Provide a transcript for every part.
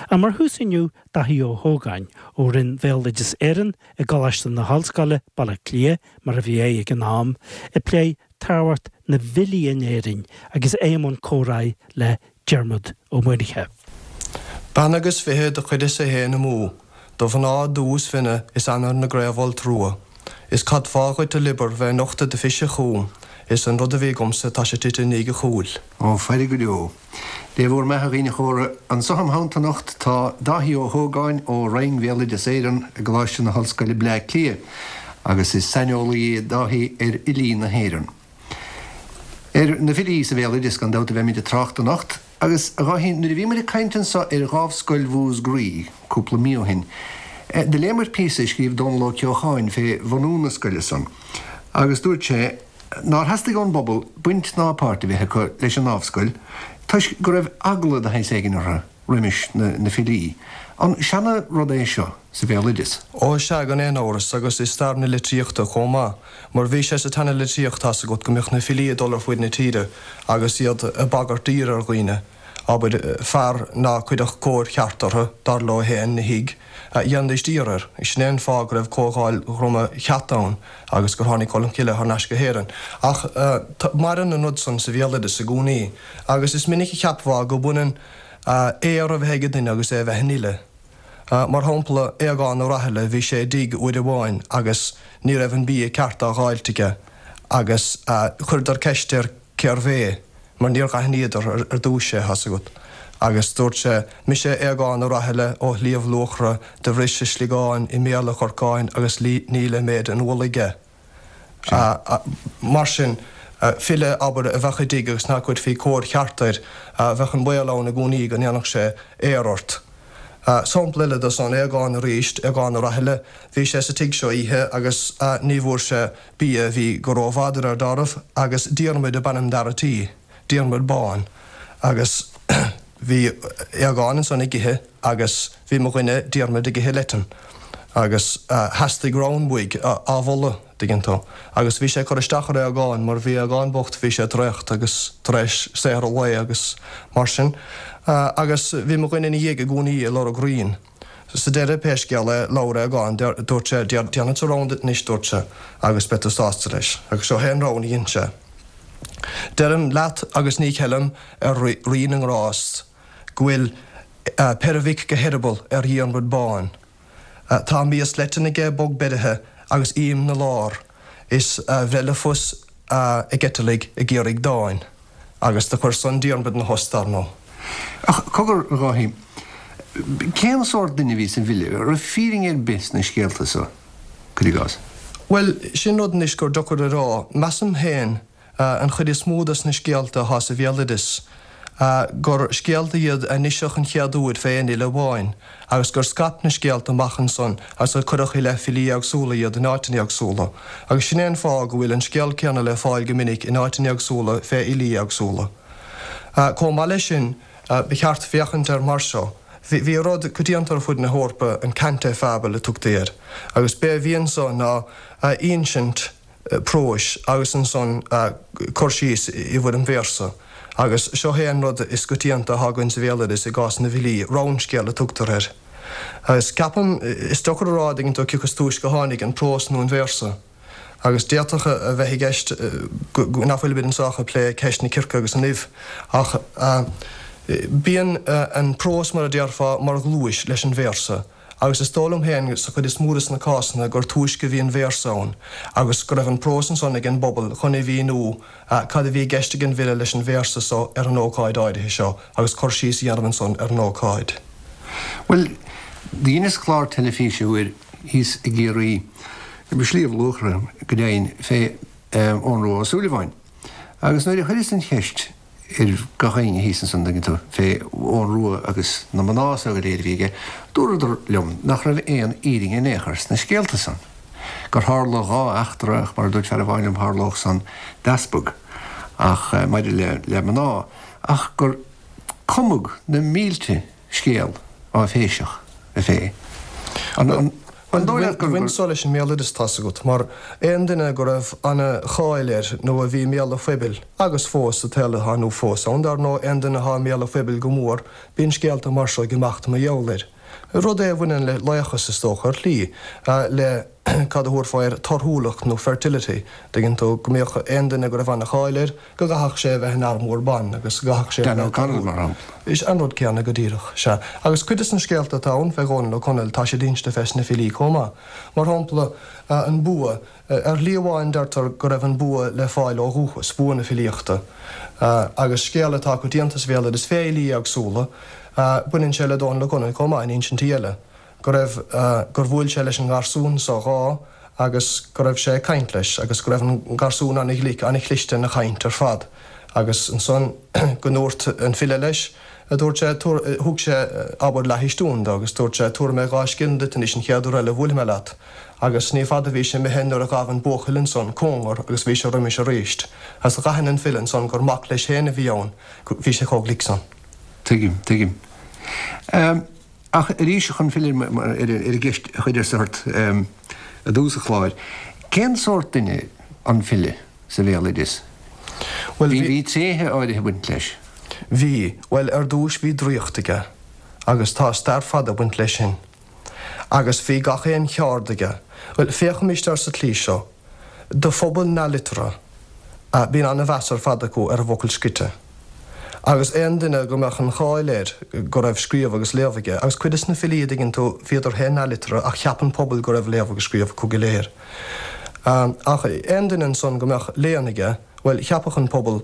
Ach mar thús inniu, Dáithí Ó hÓgáin, ó Roinn Bhéaloideas Éireann i gColáiste na hOllscoile, Baile Átha Cliath, mar a bhí é ag an am, ag plé tábhacht na bhfilí in Éirinn agus é i mbun comhráidh le Diarmuid Ó Muirthile. Bean agus 20 do chuireas-sa fhéin amú, do mhná dubh is finne is ainnir na gcraobhfholt rua. Is cad fáth dhuit a liobar bheith ag nochtadh do phise chugam, is an rud a bhí agamsa tá sé tite i ndiaidh a chúil. Ó, faire go deo. Dé bhúr mbeatha a dhaoine chóra. Anso im theannta anocht tá Dáithí Ó hÓgáin ó Roinn Bhéaloideas Éireann i gColáiste na hOllscoile Bleá Cliath agus is saineolaí é Dáithí ar fhilí na hÉireann. Ar na filí sa bhéaloideas gan dabht a bheimid ag trácht anocht agus, a Dháithí, nuair a bhí muid ag caint anso ar Dhámhscoil Mhúscraí cúpla mí ó shin, do léamair píosa a scríobh Dónal Ó Ceocháin fé bhunú na scoile san agus dúirt sé, nár theastaigh ón bpobal baint ná páirt a bheith acu leis an nDámhscoil toisc go raibh eagla de shaghas éigin orthu roimis na filí. An seana-rud é seo sa bhéaloideas? Ó sea, gan aon amhras, agus i stair na litríochta chomh maith, mar bhí sé sa tseana-litríocht, tá's agat, go mbíodh na filí ag dul ar fuaid na tíre agus iad ag bagairt daoir ar dhaoine. Abair, fear ná cuirfeadh cóir cheart orthu, dar leo féin, 'na thigh, dhéanfaidís daor air. Sin é an fáth go raibh Comhdháil Dhroma Cheat ann agus gur tháinig Colm Cille thar n-ais go hÉirinn. Ach maireann an rud san sa bhéaloideas i gcónaí agus is minic a cheapfá go mbaineann aor a bheith ag duine agus é a bheith ina fhile. Mar shampla, Aogán Ó Rathaille, bhí sé i dtigh uair amháin agus ní raibh an bia ceart á dh'fháilt aige agus chuireadar ceist air cérbh é, mar níor dh'aithníodar ar dtúis é, thá's agat. Agus dúirt sé, Mise Aogán Ó Rathaille ó Shliabh Luachra, do bhris a sliogán i mbéal a chorcáin agus níl i méid an mhullaigh aige. Mar sin, file, abair, a bheadh i dtigh agus nach gcuirfí cóir cheart air, bheadh an baol ann i gcónaí go ndéanfadh sé aor ort. Sampla eile de san, Aogán arís, Aogán Ó Rathaille, bhí sé sa tigh seo oíche agus ní bhfuair sé bia, bhí go rómhada air dáiríre, agus Diarmuid ab ainm d'fhear a' tí, Diarmuid Bán, agus bhí Aogán ansan ag ithe agus bhí mo dhuine Diarmuid ag ithe leitean agus theastaigh rann uaidh á mholadh, dtuigeann tú, agus bhí sé ag cur isteach ar Aogán mar bhí Aogán bocht, bhí sé traochta agus tar éis saothar an lae agus mar sin agus bhí mo dhuine ina dhiaidh i gcónaí ag lorg rainn. Sa deireadh, pé scéal é, labhair Aogán, dúirt sé, Déanfadsa rann duit anois, dúirt sé, agus beidh tú sásta leis. Agus seo é an rann a dhein sé. Deirim leat agus ní cheilim ar Rí na nGrást go bhfuil peire mhic go heireaball ar Dhiarmuid Bán. Tá mias leitean aige bog beirithe agus ím 'na lár is a bhreith le fios ag eiteallaigh ag iarraidh dáin. Agus do chuir san Diarmuid 'na thost, dar ndóigh. Ach cogar, a Dháithí, cén sórt duine a bhí sa bhfile? An raibh fírinne ar bith sna scéalta so, cuir i gcás? Bhuel, sin rud anois gur deacair a rá. Measaim féin, an chuid is mó dos na scéalta athá sa bhéaloideas, gur scéalta iad a iniseadh an chéad uair fé aon fhile amháin, agus gur scaip na scéalta amach ansan agus gur cuireadh i leith filí éagsúla iad in áiteanna éagsúla. Agus sin é an fáth go bhfuil an scéal céanna le fáil go minic in áiteanna éagsúla fé fhilí éagsúla. Comh maith leis sin, ba cheart féachaint air mar seo, bhí rud coitianta ar fud na hEorpa, an cante fable a tugtaí air, agus b'é a bhí anso ná insint, próis agus ansan cur síos i bhfoirm véarsa. Agus seo é an rud is coitianta atá againn sa bhéaloideas i gcás na bhfilí, rannscéal a tugtar air. Agus ceapaim, is deacair a rá, an dtuigeann tú, cioca is túisce a tháinig, an prós nó an véarsa. Agus d'fhéadfadh a bheith i gceist nach bhfuilimid anso ach ag plé ceist na circe agus an uibh. Ach bíonn an prós, mar a déarfá, mar dhlúis leis an véarsa. Agus is dóigh liom féin, sa chuid is mó de na cásanna, gur túisce a bhí an véarsa ann, agus go raibh an prós ansan ag an bpobal chun a mhíniú cad a bhí i gceist ag an bhfile leis an véarsa so ar an ócáid áirithe seo, agus cur síos a dhéanamh ansan ar an ócáid. Bhuel, dheineas clár teilifíse uair thíos i gCiarraí, i Sliabh Luachra go deimhin, fé Eoghan Rua Ó Súilleabháin. Agus nuair a chuireas an cheist ar gach éinne thíos ansan, an dtuigeann tú, fé Eoghan Rua agus na mná so go léir a bhí aige, dúradar liom nach raibh aon fhírinne in aon chor sna scéalta san. Gur tharla dhá eachtra, ach mar a dúirt fear amháin liom, tharlódh san d'easpag, ach maidir le, le mná, ach gur cumadh na mílte scéal áiféiseach fé. An. Bhuel, an dóigh leat gur. Bhain so leis an mbéaloideas, tá's agat, mar aon duine go raibh ana-cháil air nó a bhí i mbéal an phoibil, agus fós sa tsaol atá inniu fós ann, dar ndóigh, aon duine atá i mbéal an phoibil go mór, bíonn scéalta mar seo ag imeacht mar gheall air. Rud é a bhaineann le laochas, is dócha, ar shlí, le, cad a thabharfá air, torthúlacht nó fertility, dtuigeann tú, go mbíodh aon duine go raibh ana-cháil air, go gcaithfeadh sé a bheith in armúr ban agus go gcaithfeadh sé a bheith. Dan O'Connell, mar shampla. Is an rud céanna go díreach, sea. Agus cuid de na scéalta atá ann fé Dhónal Ó Conaill, tá siad inste fés na filí chomh maith. Mar shampla, an bua. Ar shlí amháin deirtear go raibh an bua le fáil ó dhúchas, bua na filíochta. Agus scéal atá coitianta sa bhéaloideas fé fhilí éagsúla, baineann sé le Dónal Ó Conaill chomh maith in insintí eile. go raibh, gur bhuail sé leis an ngarsún so dhá agus go raibh sé ag caint leis agus go raibh an garsún ana-ghlic, ana-chliste ina chaint ar fad agus ansan go ndúirt an file leis, dúirt sé, tabhair, thug sé, abair, leathchistiún do agus dúirt sé, tabharfaidh mé 2 scilling duit anois an chéad uair eile a bhuailfidh mé leat agus ní fada a bhí sé imithe nuair a ghabh an buachaill ansan cóngar agus bhí sé roimis aríst agus dh'aithin an file ansan gur mac leis féin a bhí ann, bhí sé chomh glic san. Tuigim, tuigim. Ach arís, chun filleadh ar an gceist a chuireas ort i dtús an chláir, cén sórt duine an file sa bhéaloideas? Bhuel, bhí. Bhí tréithe áirithe ag baint leis. Bhí. Bhuel, ar dtúis bhí draíocht aige, agus tá stair fada ag baint leis sin. Agus bhí gach aon cheárd aige. Bhuel, féachaimis air sa tslí seo. Do phobal neamhliteartha, bíonn an-mheas ar fad acu ar an bhfocal scrite. Agus aon duine go mbeadh an cháil air go raibh scríobh agus léamh aige, agus cuid des na filí, a dtuigeann tú, bhíodar féin neamhliteartha ach cheap an pobal go raibh léamh agus scríobh acu go léir. Ach aon duine ansan go mbeadh léann aige, bhuel, cheapfadh an pobal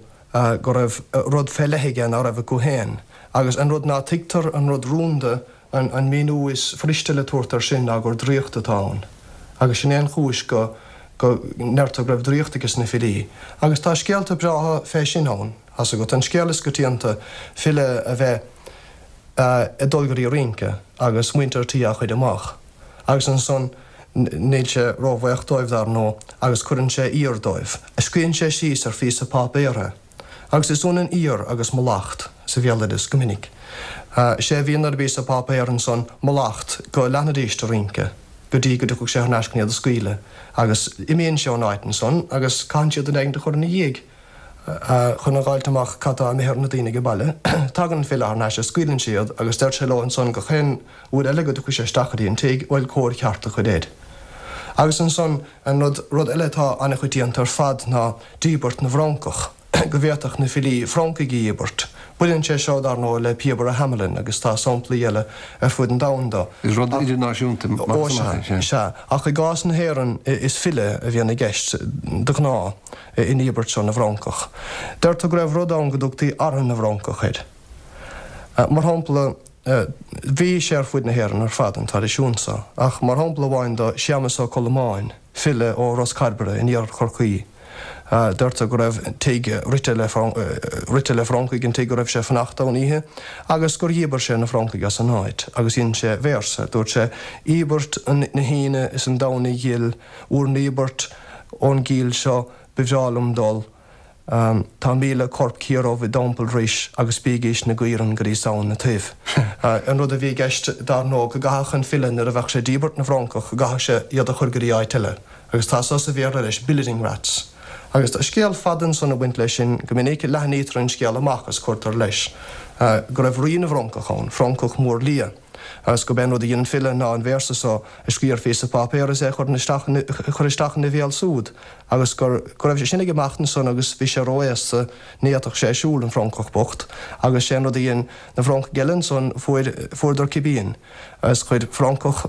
go raibh rud fé leith aige ná raibh acu féin. Agus an rud ná tuigtear, an rud rúnda, An míniú is fuiriste le tabhairt air sin ná gur draíocht atá ann. Agus sin é an chúis go go ndeirtear go raibh draíocht aige sna filí. Agus tá scéalta breátha fé sin ann, thá's agat. An scéal is coitianta, file a bheith ag dul go dtí rince agus muintir tí á chuir amach. Agus ansan níl sé róbhaoch dóibh, dar ndóigh, agus cuireann sé aoir dóibh. Scríonn sé síos ar phíosa páipéir é. Agus is ionann aoir agus mallacht sa bhéaloideas go minic. Sé a bhíonn ar an bpíosa páipéir ansan mallacht go leanfaidís de rince go dtí go dtiocfadh sé thar n-ais chun iad a scaoileadh. Agus imíonn sé ón áit ansan agus caitheann siad duine éigint a chur ina dhiaidh chun a dh'fháilt amach cad tá imithe ar na daoine age baile. Tagann an file thar n-ais is scaoileann sé iad agus deir sé leo ansan gach aon uair eile go dtiocfaidh sé isteach go dtí an tigh, bhuel, cóir cheart a chur air. Agus ansan an rud, rud eile atá an-choitianta ar fad ná díbirt na bhfrancach, go bhféadfadh na filí francaigh a dhíbirt. Baineann sé seo, dar ndóigh, le Píobaire Hamelin agus tá samplaí eile ar fud an domhain do. Is rud idirnáisiúnta Ó, sea, sea. Ach i gcás na hÉireann is file a bhíonn i gceist, de ghnáth, i ndíbirt seo na bhfrancach. Deirtear go raibh rud ann go dtugtaí Artha na bhFrancach air. Mar shampla, bhí sé ar fuid na hÉireann ar fad, an traidisiún so, ach mar shampla amháin do Séamus Ó Colmáin, file ó Ros Cairbre in iarthar Chorcaí, deirtear go raibh tigh rite le rite le francaigh an tigh go raibh sé ag fanacht ann oíche agus gur dhíbir sé na francaigh as an áit agus dhein sé véarsa, dúirt sé, Íobairt na hAoine is an Domhnaigh ghil, 'Bhur n-íobairt ón gcill seo ba bhreá liom dul. Tá 1,000 corp ciardhubh i dTeampall Rois agus bígís 'na gcaoirigh go dtí Samhain na Toibh. An rud a bhí i gceist, dar ndóigh, go gcaithfeadh an file nuair a bheadh sé ag díbirt na bhfrancach, go gcaithfeadh sé iad a chur go dtí áit eile. Agus tá so sa Bhéarla leis, billeting rats. Agus tá scéal fada ansan ag baint leis sin, go minic leathnaítear an scéal amach is cuirtear leis go raibh rí na bhfrancach ann, francach mór liath. Agus gurb é an rud a dhein an file ná an véarsa so a scríobh ar phíosa páipéir is é a chur isteach a chur isteach ina bhéal súd agus gur go raibh sé sin ag imeacht ansan agus bhí sé ró-aosta ní fhéadfadh sé siúl, an francach bocht, agus sé an rud a dhein na francaigh eile ansan fuair fuaireadar cipín agus chuir francach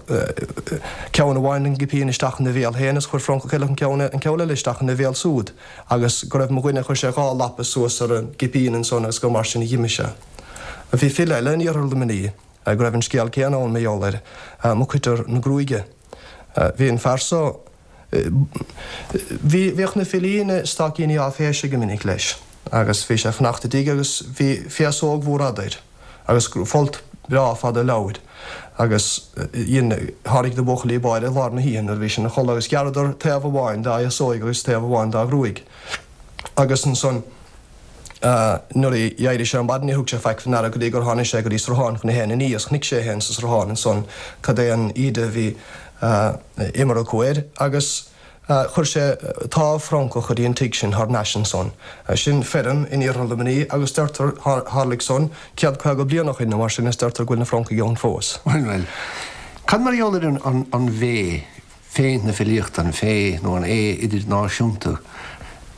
ceann amháin den gcipín isteach ina bhéal féin agus chuir francach eile an ceann an ceann eile isteach ina bhéal súd agus go raibh mo dhuine chuir sé 2 lapa suas ar an gcipín ansan agus gur mar sin a dh'imigh sé. Bhí file eile in iarthar Luimnigh go raibh an scéal céanna ann mar gheall air, Mac Coitir na Gruaige. Bhí an fear so, bhí, bhíodh na filí ina staicíní áiféise go minic leis agus bhí sé ag fanacht i dtigh agus bhí féasóg mhór fhada air agus folt breá fada leabhair agus dhein, tháinig na buachaillí báire i lár na hoíche nuair a bhí sé ina chodladh agus ghearradar taobh amháin dá fhéasóig agus taobh amháin dá ghruaig agus ansan, Nuair a d'éirigh sé ar maidin níor thug sé faic fé ndeara go dtí gur tháinig sé go dtí sruthán chun é féin a ní agus chonaic sé é féin sa sruthán ansan cad é an íde a bhí. Imir acu air agus chuir sé támh Francach go dtí an tigh sin thar n-ais ansan. Sin feirm in iarthar Luimnigh agus deirtear, tharlaigh san 150 bliain ó shin nó mar sin is deirtear go bhfuil na Francaigh ann fós. Bhuel, bhuel. Cad mar gheall ar an bhféith, féith na filíochta, an féith nó an aoth idirnáisiúnta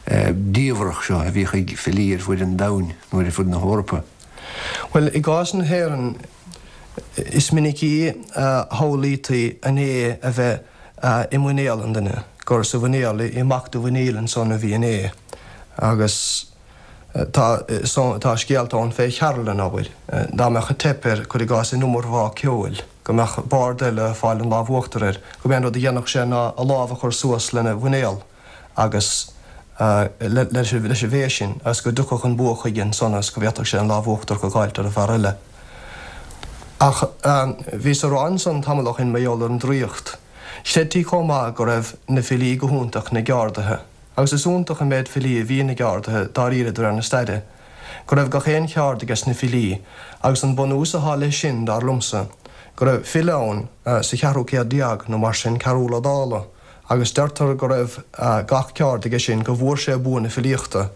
diamhrach seo a bhíodh ag filí ar fuaid an domhain nó ar fuaid na hEorpa? Bhuel, i gcás na hÉireann, is minicí a shamhlaítaí an aoth a bheith i muinéal an duine, gur sa mhuinéal, i mbac do mhuiníl ansan a bhí an aoth. Agus tá, tá scéalta ann fé Chearlann, abair, dá mbeadh teip air, cuir i gcás, in iomarbhá ceoil, go mbeadh bard eile ag fáil an lámh uachtair air, go mb'é an rud a dhéanfadh sé ná a lámh a chur suas lena mhuinéal. agus leis an bhféith sin agus go dtiocfadh an bua chuige ansan agus go bhféadfadh sé an lámh uachtarach a dh'fháilt ar an bhfear eile. Ach bhíos a rá ansan tamall ó shin mar gheall ar an draíocht. Chreidtí chomh maith go raibh na filí go hiontach ina gceardaithe. Agus is iontach an méid filí a bhí ina gceardaithe dáiríre de réir na staire. Go raibh gach aon cheárd ages na filí, agus an bunús athá leis sin, dar liomsa, go raibh file ann sa cheathrú céad déag nó mar sin, Cearúll Ó Dálaigh, agus deirtear go raibh gach ceárd aige sin go bhfuair sé bua na filíochta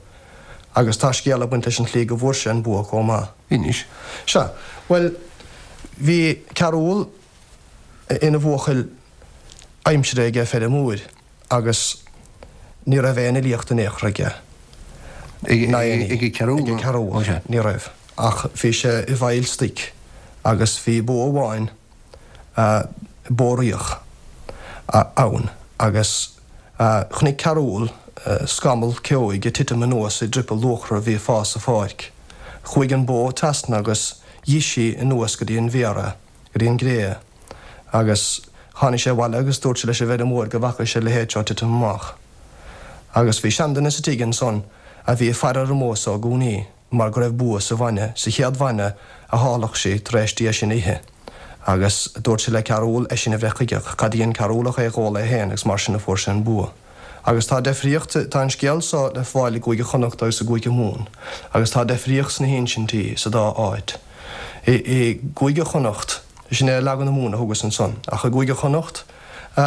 agus tá scéal ag baint leis an tslí go bhfuair sé an bua chomh maith. Inis. Sea. Bhuel, bhí Cearúll ina bhuachaill aimsire aige feirmeoir agus ní raibh aon fhilíocht in aon chor aige. Ag Cearúll? Ag Cearúll. Ní raibh. Ach bhí sé i bhfeighil stoic agus bhí bó amháin bó riach ann agus chonaic Cearúll scamall ceoigh ag titim anuas i dtriopall luachra a bhí ag fás sa pháirc. Chuaigh an bó trasna agus dh'ith sí anuas go dtí an bhféar é, go dtí an gcré é. Agus tháinig sé abhaile agus dúirt sé leis an bhfeirmeoir go bhfaca sé a leithéid seo titim amach. Agus bhí seanduine sa tigh ansan a bhí ag faire ar an mbó so i gcónaí. mar go raibh bua sa bhainne, sa chéad bhainne a tháirgfeadh sí tar éis di é sin a ithe. Agus dúirt sé le Cearúll é sin a bhreith chuige, ach cad a dhein Cearúll ach é a dh'ól é féin agus mar sin a fuair sé an bua. Agus tá deifríocht, tá an scéal so le fáil i gCúige Chonnacht agus i gCúige Mumhan, agus tá deifríocht sna hinsintí sa dá áit. I gCúige Chonnacht, sin é leagan na Mumhan a thugas ansan, ach i gCúige Chonnacht,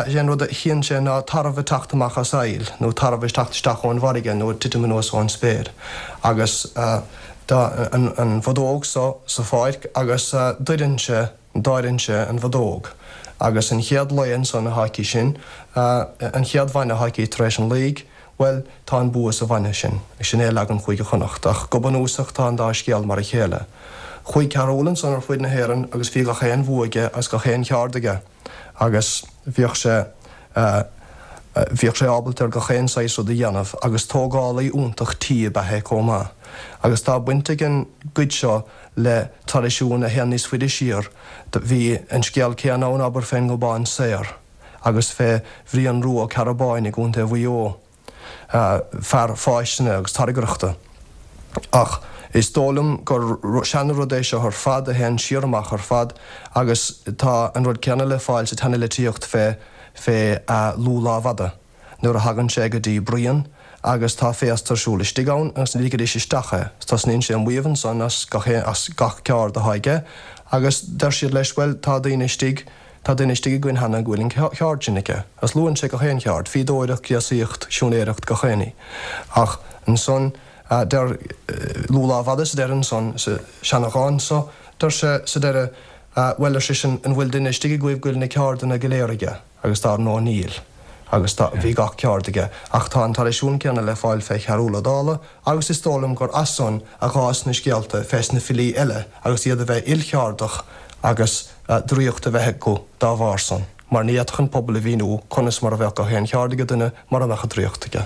Is é an rud a chíonn sé ná tarbh ag teacht amach as aill, nó tarbh ag teacht isteach ón bhfarraige nó ag titim anuas ón spéir. Agus tá an bhodóg so sa pháirc agus doireann sé, dáireann sé an bhodóg. Agus an chéad lao ansan atá aici sin, an chéad bhainne atá aici tar éis an laoigh, Bhuel, tá an bua sa bhainne sin. Sin é leagan Chúige Chonnacht, ach go bunúsach tá an dá scéal mar a chéile. Chuaigh Cearúll ansan ar fuaid na hÉireann agus bhí gach aon bhua aige agus gach aon cheárd aige agus bhíodh sé, bhíodh sé ábalta ar gach aon saghas rud a dhéanamh agus tógálaí iontach tí ab ea é comh maith. Agus tá baint ag an gcuid seo le traidisiún a théann níos faide siar. Bhí an scéal céanna ann, abair, fén nGobán Saor. agus fé Bhrian Rua Ó Cearbáin i gContae Mhaigh Eo, fear fáistine agus tairngreachta. Ach is dóigh liom gur seana-rud é seo ar fad a théann siar amach ar fad agus tá an rud céanna le fáil sa tseana-litríocht fé fé Lugh Lámhfhada. Nuair a thagann sé go dtí Brian agus tá féasta ar siúl istigh ann agus ní ligfidís isteach é. Tosnaíonn sé ag maíomh ansan as gach as gach ceárd atá aige agus deir siad leis bhuel tá daoine istigh tá duine istigh againn cheana go bhfuil an cheárd sin aige. Agus luann sé gach aon cheárd, fíodóireacht, gréasaíocht, siúinéireacht, gach aon ní. Ach ansan deir Lugh Lámhfhada sa deireadh ansan sa seana-dhán so, deir sé sa deireadh bhuel ar seisean an bhfuil duine istigh agaibh go bhfuil na ceárdanna go léir aige? Agus dar ndóigh níl. Agus tá, bhí gach ceárd aige. Ach tá an traidisiún céanna le fáil fé Chearúll Ó Dálaigh agus is dóigh liom gur as san a dh'fhás na scéalta fés na filí eile agus iad a bheith ilcheárdach agus draíocht a bheith acu dá bharr san, mar ní fhéadfadh an pobal a mhíniú conas mar a bheadh gach aon cheárd age duine mura mbeadh an draíocht aige.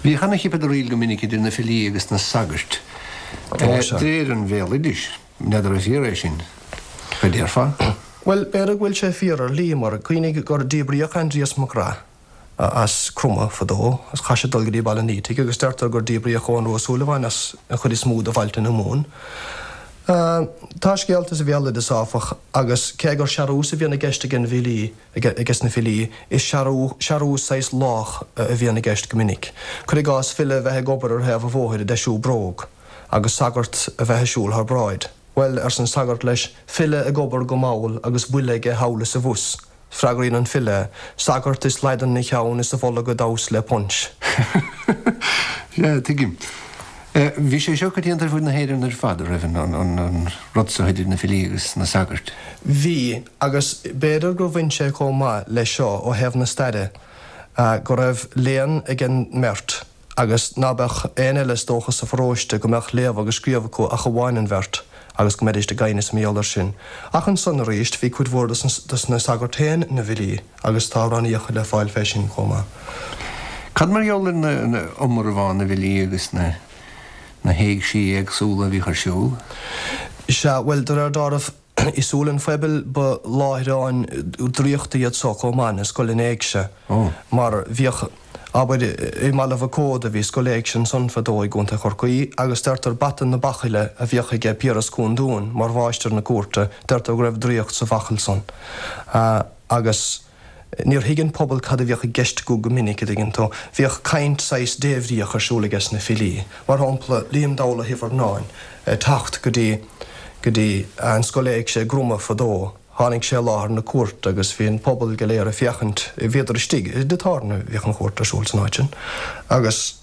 Bhíodh ana-chipeadaraíl go minic idir na filí agus na sagairt, de réir an bhéaloidis. N'fheadar an fíor é sin? Cad déarfá? Bhuel, b'fhéidir go bhfuil sé fíor ar shlí, mar cuimhnigh gur díbríodh Aindrias Mac Graith as Cromadh fadó, agus chaith sé dul go dtí Baile an Fhaoitigh, agus deirtear gur díbríodh Eoghan Rua Ó Súilleabháin as an chuid is mó de bhailte na Mumhan. Tá scéalta sa bhéaloideas, áfach, agus cé gur searús a bhíonn i gceist ag an bhfilí, ages na filí, is searú, searús saghas lách a bhíonn i gceist go minic. Cuir i gcás, file a bheith ag obair ar thaobh an bhóthair ag deisiú bróg. agus sagart a bheith ag siúl thar bráid. Bhuel, arsa an sagart leis, file ag obair go mall agus buille aige thall is abhus. Freagraíonn an file, Sagart is laghdan 'na cheann is a bholg ag damhsa le punch. Sea, tuigim. Bhí sé seo coitianta ar fud na hÉireann ar fad, a raibh, an rud so idir na filí agus na sagairt? Bhí, agus b'fhéidir gur bhain sé chomh maith leis seo ó thaobh na staire, go raibh léann ag an mbeirt agus ná beadh aon eile is dócha sa pharóiste go mbeadh léamh agus scríobh acu ach amháin an bheirt agus go mbeidíst ag aighneas mar gheall air sin. Ach ansan arís bhí cuid mhór dos na sagairt féin ina bhfilí agus tá amhránaíocha le fáil fé sin chomh maith. Cad mar gheall ar na iomarbhá na bhfilí agus na na héigsí éagsúla a bhíodh ar siúl? Sea, bhuel, de réir dealraimh, I súil an phobail ba láithreáin draíochta iad so chomh maith, na scoileanna éigse, mar bhíodh, abair, i mBaile Mhic Óda bhí scoil éigse ansan fadó i gContae Chorcaí agus deirtear bata na bachaille a bhíodh aige Piaras Cúng Dúin mar mháistir na cúirte, deirtear go raibh draíocht sa bhachall san. Agus. Níor thuig an pobal cad a bhíodh i gceist acu go minic, a dtuigeann tú. Bhíodh caint saghas débhríoch ar siúl aiges na filí. Mar shampla, Liam Dowla Hifearnáin ag teacht go dtí, go dtí an scoil éigse i gCroma fadó. Tháinig sé i láthair na cúirte agus bhí an pobal go léir ag féachaint, bhíodar istigh, i dtigh tábhairne a bhíodh an chúirt ar siúl san áit sin, agus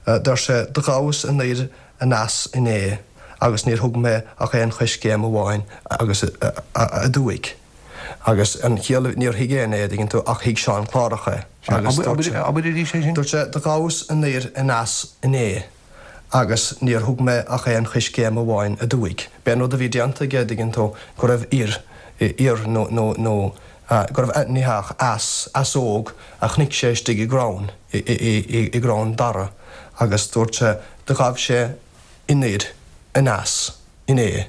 deir sé, Do ghabhas anoir aneas inné agus níor thug mé ach aon choiscéim amháin agus aduaidh. Agus an chiall, níor thuig éinne é, a dtuigeann tú, ach thuig Seán Clárach é. Agus dúirt sé. Abair arís é sin. Dúirt sé, Do ghabhas anoir aneas inné agus níor thug mé ach aon choiscéim amháin aduaidh. B'é an rud a bhí déanta aige, a dtuigeann tú, go raibh oir, oir nó, nó, nó, go raibh, ní hea, ach eas, easóg a chonaic sé istigh i gcrann, i, i, i, i gcrann dara agus dúirt sé, do ghabh sé anoir aneas. inné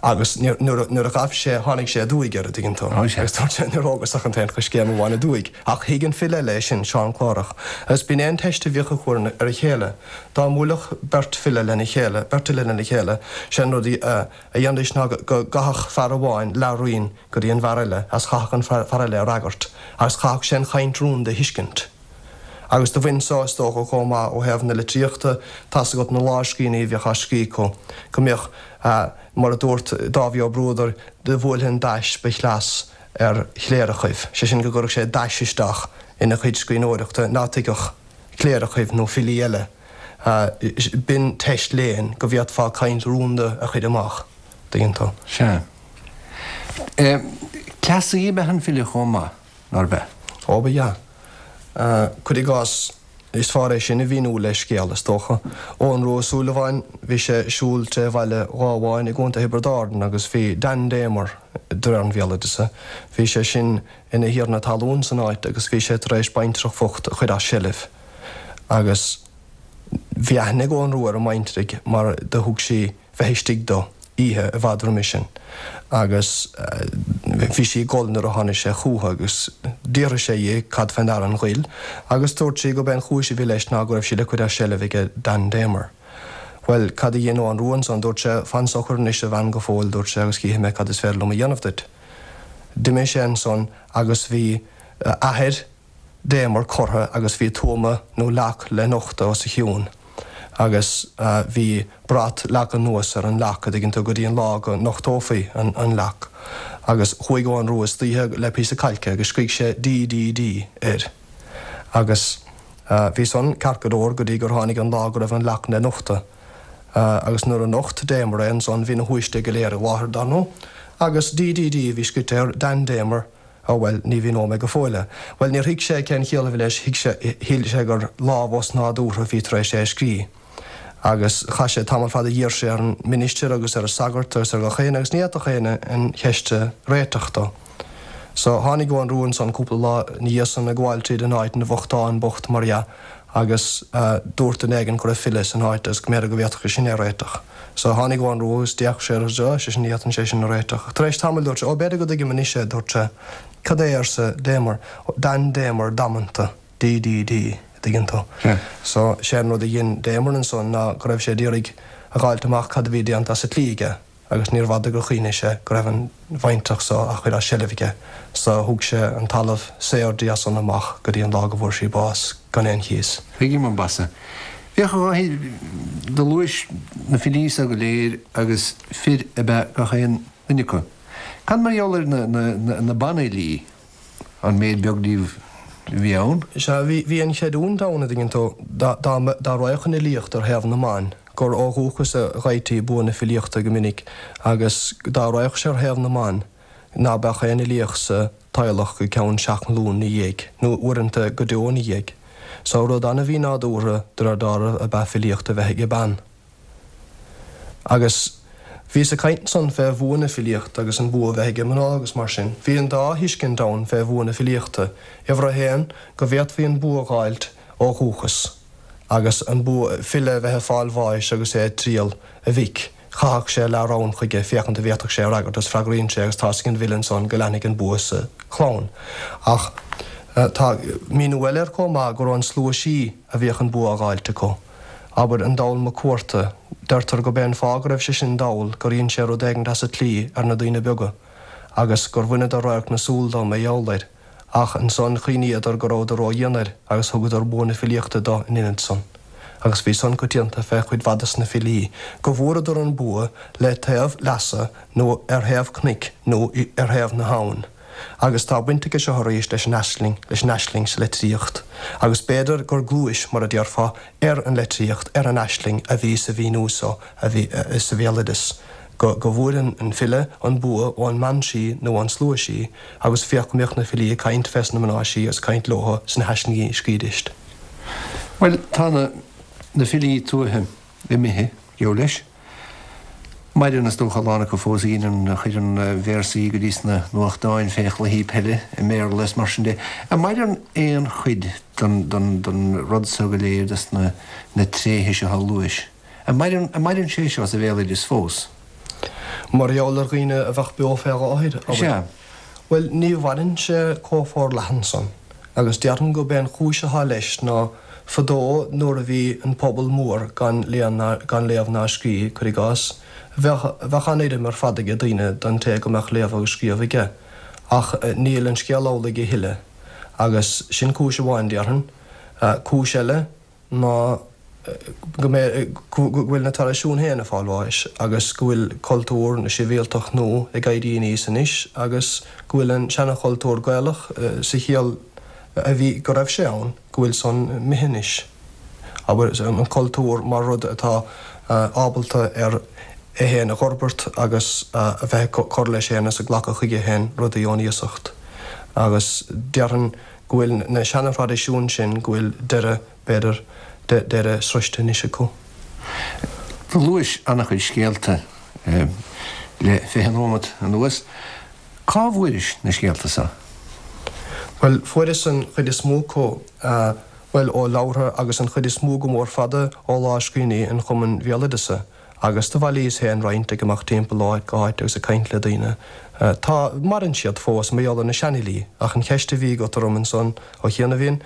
agus nuair a ghabh sé, tháinig sé aduaidh air, a dtuigeann tú. Agus dúirt sé, níor thógas ach an t-aon choiscéim amháin aduaidh. Ach thuig an file eile é sin, Seán Clárach. Agus b'in é an teist a bhíodh acu ar a chéile. Dá mbuailfeadh beirt file lena chéile, beirt fhile lena chéile, sé an rud a dhéanfaidís ná go gcaithfeadh fear amháin leath-raon go dtí an bhfear eile agus chaithfeadh an fear eile a fhreagairt agus chaithfeadh sé an chaint rúnda a thuiscint. Agus do bhain so, is dócha, chomh maith ó thaobh na litríochta, tá's agat na lámhscríbhinní a bhíodh á scríobh acu, go mbíodh, mar a dúirt Dáibhí Ó Bruadair, do bhuailfinn dais ba chleas ar chléireachaibh, sé sin go gcuirfeadh sé dais isteach ina chuid scríbhneoireachta ná tuigfeadh cléireachaibh nó filí eile. B'in teist léinn go bhféadfá caint rúnda a chuir amach, dtuigeann tú. Sea. Cleasaí ab ea an file chomh maith. Nárbh ea? Ó, ba ea. Cuir i gcás, is fearr é sin a mhíniú le scéal, is dócha. Eoghan Rua Ó Súilleabháin, bhí sé ag siúl tré bhaile Ghábháin i gContae Thiobraid Árann agus bhí Dan Damer, de réir an bhéaloideasa, bhí sé sin ina thiarna talún san áit agus bhí sé tar éis baintreach bhocht a chuir as seilbh agus bhí aithne ag Eoghan Rua ar an mbaintreach mar do thug sí bheith istigh dó oíche i bhfad roimis sin agus bhí sí ag gol nuair a tháinig sé chúithi agus d'fhiafraigh sé dhi cad fé ndeara an ghoil agus dúirt sí gurb é an chúis a bhí leis ná go raibh sí le cuir as seilbh aige Dan Damer. Bhuel, cad a dhein Eoghan Rua ansan? Dúirt sé, Fan socair anois a bhean go fóill, dúirt sé, agus chífidh mé cad is féidir liom a dhéanamh duit. D'imigh sé ansan agus bhí athair Damer curtha agus bhí tuama nó leac le nochtadh os a chionn agus bhí brat leagtha anuas ar an leac, a dtuigeann tú, go dtí an lá go nochtófaí an leac. Agus chuaigh Eoghan Rua istoíche le píosa cailce agus scrígh sé DDD air. Agus bhí san ceart go leor go dtí gur tháinig an lá go raibh an leac le nochtadh. Agus nuair a nocht Damer é ansan bhí na huaisle go léir i láthair, dar ndóigh, agus DDD a bhí scrite air, Dan Damer, Ó, bhuel, ní mhíneoidh mé go fóill é. Bhuel, níor thuig sé cén chiall a bhí leis, thuig sé, shíl sé gur lámh osnádúrtha a bhí tar éis é a scrí. Agus chaith sé tamall fada, d'iarr sé ar an ministir agus ar an sagart agus ar gach éinne agus ní fhéadfadh éinne an cheist a réiteach dó. So, tháinig Eoghan Rua ansan cúpla lá ina dhiaidh san ag gabháil tríd an áit ina bhochtán bocht mar dhea agus dúirt duine éigin go raibh file san áit agus go mb'fhéidir go bhféadfadh sé sin é a réiteach. So tháinig Eoghan Rua agus d'fhéach sé air agus dúirt, sé sin, ní fhéadfainn sé sin a réiteach. Ach tar éis tamaill dúirt sé, Ó, b'fhéidir go dtuigim anois é, dúirt sé. Cad é, arsa Damer. Dan Damer damanta, DDD, a dtuigeann tú. So, sé an rud a dhein Damer ansan ná go raibh sé d'iarraidh a dh'fháilt amach cad a bhí déanta as an tslí aige agus níorbh fhada gur chuimhnigh sé go raibh an bhaintreach so á chuir as seilbh aige. So thug sé an talamh saor di as san amach go dtí an lá go bhfuair sí bás gan aon chíos. Tuigim ambaiste. Féach, a Dháithí, do luais na filí so go léir agus fir ab ea gach aon duine acu. Cad mar gheall ar na banfhilí? an méid beag díobh a bhí ann. Sea, bhí, bhí an chreidiúint ann, a dtuigeann tú, dá, dá, dá raghadh an fhilíocht ar thaobh na mban, gur ó dhúchas a gheibhtí bua na filíochta go minic agus dá raghadh sé ar thaobh na mban, ná beadh aon fhilíocht sa teaghlach go ceann seacht nglún 'na dhiaidh, nó uaireanta go deo 'na dhiaidh. So, rud an-mhínádúrtha de réir dealraimh ab ea filíocht a bheith ag bean. Agus bhíos ag caint ansan fé bhua na filíochta agus an bua a bheith ag mná agus mar sin. Bhí an dá thuiscint ann fé bhua na filíochta. Uimhir a haon, go bhféadfaí an bua a dh'fháilt ó dhúchas, agus an bua, file a bheith ag fáil bháis agus é ag triall a mhic, chaithfeadh sé leath-rann chuige féachaint an bhféadfadh sé a fhreagairt agus freagraíonn sé agus tá's ag an bhfile ansan go leanfaidh an bua sa chlann. Ach tá míniú eile air chomh maith, gur ón slua sí a bhíodh an bua á dh'fháilt acu. Abair, an Dall Mac Cuarta, deirtear gurb é an fáth go raibh sé sin dall gur dhein sé rud éigint as an tslí ar na daoine beaga agus gur bhaineadar radharc na súl dó mar gheall air, ach ansan chuimhníodar go rabhadar ró-dhian air agus thugadar bua na filíochta do in ionad san. Agus bhí san coitianta fé chuid mhaith de na filí, go bhfuaireadar an bua le taobh leasa nó ar thaobh cnoic nó ar thaobh na habhann. Agus tá baint aige seo arís leis an aisling, leis an aisling sa litríocht. Agus b'fhéidir gur gluais, mar a déarfá, ar an litríocht, ar an aisling a bhí sa mhíniú so a bhí sa bhéaloideas, go go bhfuair an file an bua ón mbean sí nó ón slua sí, agus féach go mbíodh na filí ag caint fés na mná sí agus ag caint leotha sna haislingí a scríobhaidíst. Bhuel, tá na na filí tuaithe imithe, geall leis. Maireann, is dócha, a lán acu fós a dheineann, a chuireann véarsaí go dtí sna nuachtáin fé chluichí peile i mBéarla is mar sin de. An maireann aon chuid den, den, den rud so go léir, des na, na tréithe seo a luais? An maireann, an maireann sé seo sa bhéaloideas fós? Mar gheall ar dhaoine a bheadh beo fé láthair, abair. Sea. Bhuel, ní mhaireann sé chomh forleathan san. Agus déarfainn gurb é an chúis atá leis ná fadó nuair a bhí an pobal mór gan gan léamh ná scríobh, cuir i gcás, bheadh bheadh an-urraim ar fad aige daoine don té go mbeadh léamh agus scríobh aige. Ach níl an scéal amhlaidh a thuilleadh. Agus sin cúis amháin, déarfainn. Cúis eile ná go mbeidh, go bhfuil na traidisiúin féin ag fáil bháis agus go bhfuil cultúr na sibhialtacht nua ag éirí aníos anois agus go bhfuil an seana-chultúr Gaelach sa chiall a bhí, go raibh sé ann, go bhfuil san imithe anois. Abair, an cultúr mar rud atá ábalta ar é féin a dh'fhorbairt agus a bheith ag cur leis féin is ag glacadh chuige féin rudaí ón iasacht. Agus déarfainn go bhfuil na seana-thraidisiúin sin, go bhfuil deireadh, b'fhéidir, deireadh sroiste anois acu. Do luais an-chuid scéalta le 20 nóimeat anuas. Cá bhfuairis na scéalta so? Bhuel, fuaireas an chuid is mó acu, bhuel, ó leabhartha agus an chuid is mó go mór fada ó lámhscríbhinní an Chumainn Bhéaloideasa. Agus do bhailíos féin roinnt ag imeacht timpeall ó áit go háit agus ag caint le daoine. Tá, maireann siad fós, mar gheall ar na seanfhilí, ach an cheist a bhí agat orm ansan ó chianaibh,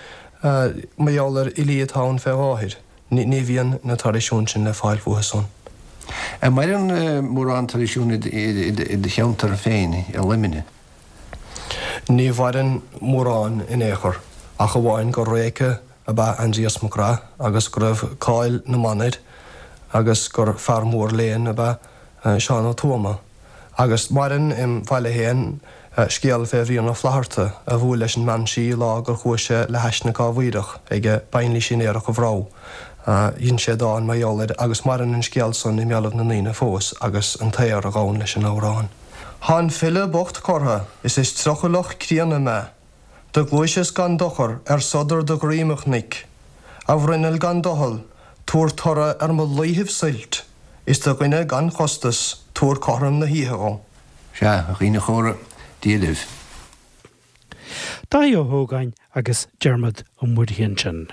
mar gheall ar fhilí atá ann fé láthair, ní, ní bhíonn na traidisiúin sin le fáil fúthu san. An maireann mórán traidisiún i do cheantar féin, i Luimneach? Ní mhaireann mórán in aon chor, ach amháin gur réice ab ea Aindrias Mac Craith agus go raibh cáil na mban air agus gur fear mór léinn ab ea Seán Ó Tuama. Agus maireann im bhaile féin scéal fé Bhrian Ó Flaithearta a bhuail leis an mbean sí lá gur chuaigh sé le hais na Cábhaoireach ag Bainlís Uí Aodha Bhreagh. Dhein sé dán mar gheall air agus maireann an scéal san i mbéalaibh na ndaoine fós agus an t-aor a ghabhann leis an amhrán. Thá an file bocht cortha is is trucailleach críonna mé. Do ghluaiseas gan dochar ar sodar do dhroim, a chnoic. A bhruinneall gan doicheall, tabhair toradh ar mo laethibh suilt, is do dhuine gan chostas, tabhair cothrom na hoíche dhom. Sea, a dhaoine chóra, Dia libh. Dáithí Ó hÓgáin agus Diarmuid Ó Muirithe ansin.